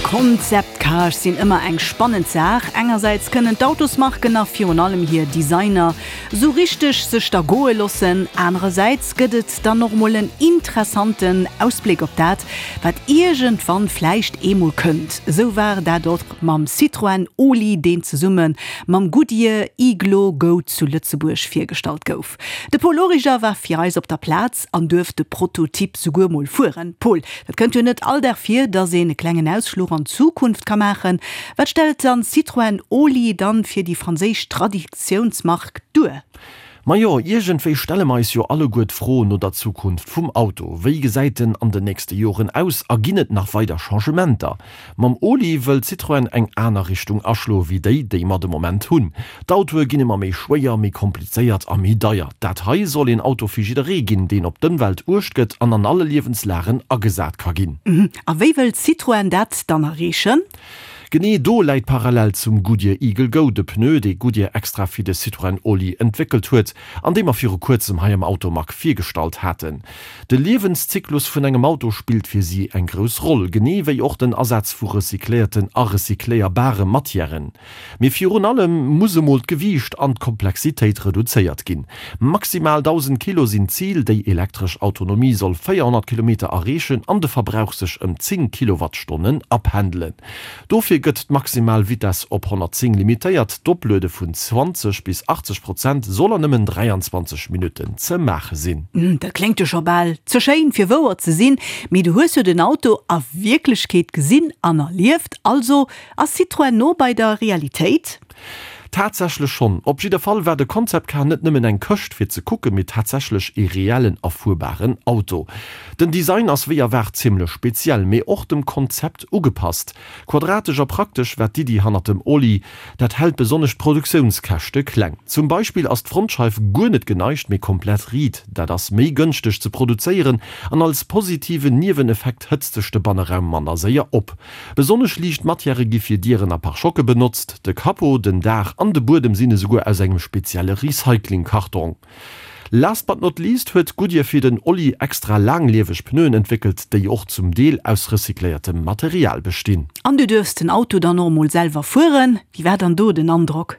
Concept Cars sinn ëmmer eng spannend Saach. Engersäits kënnen d'Autosmarken a virun allem hir Designer sou richteg sech da goe loossen, anerersäits gëtt et dann och mol en interessanten Ausbléck op dat, wat iergendwann vläicht eemol kënnt. Esou war dat och mam Citroën Oli, deen zesumme mam Goodyear Iglo Go zu Lëtzebuerg virgestallt gouf. De Paul Origer war fir eis op der Plaz an duerft de Prototyp souguer mol fueren. Paul, dat kënnt jo net all Dag vir, dass een e klengen Ausfluch an d'Zukunft ka maachen. Wat stellt dann Citroën Oli dann fir déi franséisch Traditiounsmark duer? Majo, iergendwéi stelle mer eis jo alleguer d'Fro no der Zukunft vum Auto. Wéi gesäit en an den nächste Joren aus a ginn et nach weider Changementer? Mam Oli wëllt Citroën eng aner Richtung aschloe wéi déi, déi mer de Moment hunn. D'Autoe ginn ëmmer méi schwéier, méi komplizéiert a méi deier. Dat hei soll een Auto fir jidderee ginn, deen op d'Ëmwelt uecht gëtt an an alle Liewenslagen agesat ka ginn. A wéi wëllt Citroën dat dann erreechen? Genee do läit d'Parallel zum Goodyear Eagle Go, de Pneu, dee Goodyear extra fir de Citroën Oli entwéckelt huet an dee mer viru kuerzem hei am Automag virgestallt haten. De Liewenszyklus vun engem Auto spillt fir si eng grouss Roll, genee wéi och den Asaz vu recycléierten a recycléierbare Matièren. Mee virun allem muss emol d'Gewiicht an d'Komplexitéit reduzéiert ginn. Maximal 1.000 Kilo sinn d'Zil, déi elektresch Autonomie soll 400 Kilometer erreechen an de Verbrauch sech ëm 10 Kilowattstonnen apendelen. Dofir gëtt d'maximal Vitess op 110 limitéiert, d'Opluede vun 20 bis 80 Prozent soll an nëmmen 23 Minutten ze maache sinn. Dat kléngt jo scho bal ze schéin fir wouer ze sinn, mee du hues jo den Auto a Wierklechkeet gesinn an erlieft, also ass Citroën no bei der Realitéit? Tatsächlech schonn. Op jidder Fall war de Concept Car net nëmmen eng Këscht fir ze kucken, mee tatsächlech ee reellen a fuerbaren Auto. Den Design ass wéi erwaart zimmlech speziell, mee och dem Konzept ugepasst. Quadratesch a praktesch war d'Iddi hannert dem Oli. Dat hält besonnesch d'Produktiounskäschte kleng. Zum Beispill ass d'Frontscheif guer net geneigt, mee komplett riit. Dat ass méi gënschteg ze produzéieren an als positiven Nieweneffekt hëtzt sech de Banneraum manner séier op. Besonnesch liicht Matièrë gi fir Dieren a Pare-choque benotzt. De Capot, den Daach an de Buedem sinn esouguer aus engem spezielle Recycling-Kartong. Last but not least huet Goodyear fir den Olli extra laanglieweg Pneuen entwéckelt, déi och zum Deel aus recycléiertem Material bestinn. An du duerfs den Auto dann och emol selwer fueren. Wéi war dann do den Androck?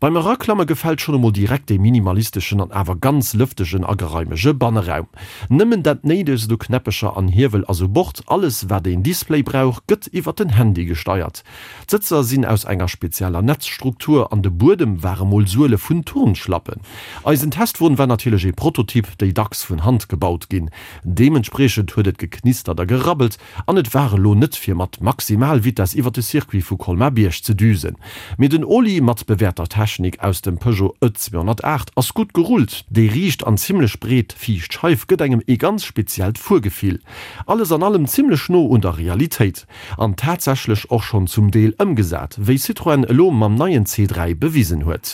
Beim Eraklamme gefält schonn emol direkt dee minimalisteschen an awer ganz lëftegen a geraimege Banneraum. Nëmmen dat Néidegst u Knäppecher an Hiewel ass u Bord, alles wat een Display brauch gëtt iwwer den Handy gesteiert. D'Sëtzer sinn aus enger spezieller Netzstruktur an de Buedem ware mol Suele vun Turnschlappen. Eisen Testwon war natierlech ee Prototyp, déi dacks vun Hand gebaut ginn. Deementspriechend huet et geknistert a gerabbelt an et war elo net fir mat Maximalvitess iwwer de Circuit vu Colmar-Bierg ze düsen. Mee den Oli mat bewäerter Technik aus dem Peugeot E 208 ass gutt gerullt. Déi riicht an zimmlech breet viischt Scheif gëtt engem ee ganz speziellt Fuergefill. Alles an allem zimmlech no un der Realitéit. An tatsächlech och schonn zum Deel ëmgesat, wéi Citroën elo mam neien C3 bewisen huet.